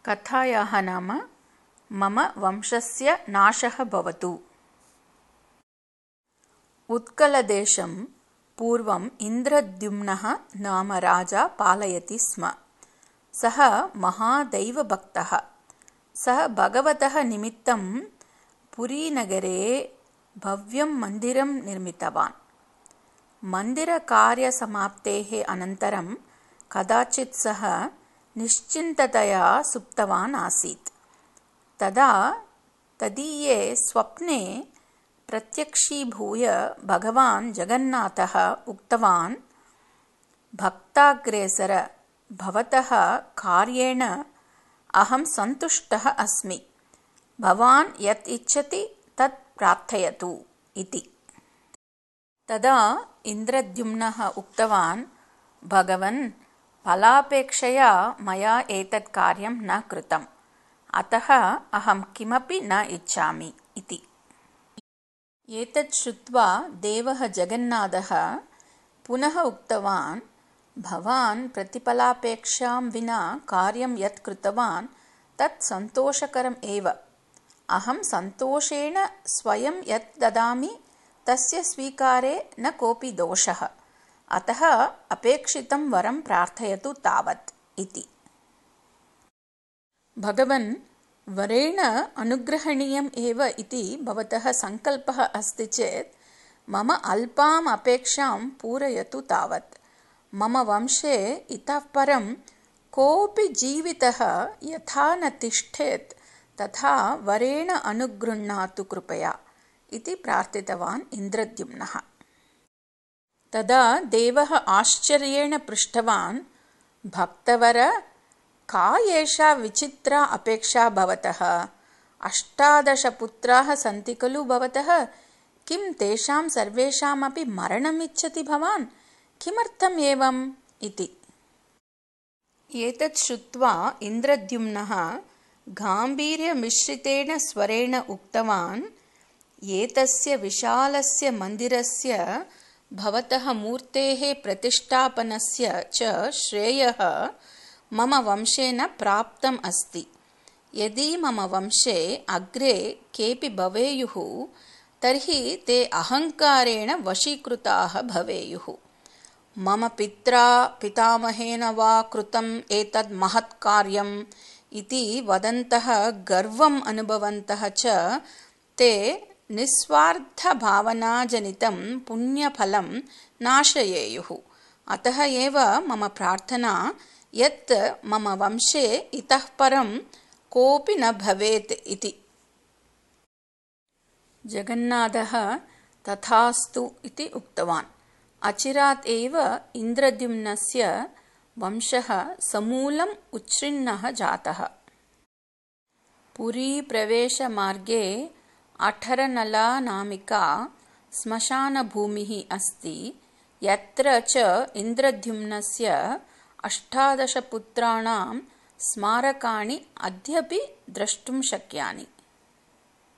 कथायाः नाम मम वंशस्य नाशः भवतु। उत्कलदेशं पूर्वम् इन्द्रद्युम्नः नाम राजा पालयति स्म। सः महादैवभक्तः। सः भगवतः निमित्तं पुरीनगरे भव्यं मन्दिरं निर्मितवान्। मन्दिरकार्यसमाप्तेः अनन्तरं कदाचित् सः निश्चिन्ततया सुप्तवान् आसीत्। तदा तदीये स्वप्ने प्रत्यक्षीभूय भगवान् जगन्नाथः उक्तवान्, भक्ताग्रेसर, भवतः कार्येण अहं सन्तुष्टः अस्मि। भवान् यत् इच्छति तत् प्रार्थयतु इति। तदा इन्द्रद्युम्नः उक्तवान्, भगवन्, फलापेक्षया मया एतत् कार्यं न कृतम्, अतः अहं किमपि न इच्छामि इति। एतत् श्रुत्वा देवः जगन्नाथः पुनः उक्तवान्, भवान् प्रतिफलापेक्षां विना कार्यं यत् कृतवान् तत् सन्तोषकरम् एव। अहं सन्तोषेण स्वयं यत् ददामि तस्य स्वीकारे न कोऽपि दोषः, अतः अपेक्षितं वरं प्रार्थयतु तावत् इति। भगवन्, वरेण अनुग्रहणीयम् एव इति भवतः सङ्कल्पः अस्ति चेत् मम अल्पाम् अपेक्षां पूरयतु तावत्। मम वंशे इतः परं कोऽपि जीवितः यथा न तिष्ठेत् तथा वरेण अनुगृह्णातु कृपया इति प्रार्थितवान् इन्द्रद्युम्नः। तदा देवः आश्चर्येण पृष्टवान्, भक्तवर, का एषा विचित्रा अपेक्षा भवतः? 18 पुत्राः सन्ति खलु भवतः? किं तेषां सर्वेषामपि मरणम् इच्छति भवान्? किमर्थम् एवम् इति। एतत् श्रुत्वा इन्द्रद्युम्नः गाम्भीर्यमिश्रितेन स्वरेण उक्तवान्, एतस्य विशालस्य मन्दिरस्य भवतः मूर्तेः प्रतिष्ठापनस्य च श्रेयः मम वंशेन प्राप्तम् अस्ति। यदि मम वंशे अग्रे केऽपि भवेयुः तर्हि ते अहङ्कारेण वशीकृताः भवेयुः। मम पित्रा पितामहेन वा कृतम् एतद् महत् कार्यम् इति वदन्तः गर्वम् अनुभवन्तः च ते निस्वार्थभावनाजनितं पुण्यफलं नाशयेयुः। अतः एव मम प्रार्थना यत् मम वंशे इतः परं कोऽपि न भवेत् इति। जगन्नाथः तथास्तु इति उक्तवान्। अचिरात् एव इन्द्रद्युम्नस्य वंशः समूलम् उच्छिन्नः जातः। पुरीप्रवेशमार्गे अठरनला नामिका श्मशानभूमिः अस्ति, यत्र च इन्द्रद्युम्नस्य 18 पुत्राणां स्मारकाणि अद्यापि द्रष्टुं शक्यानि।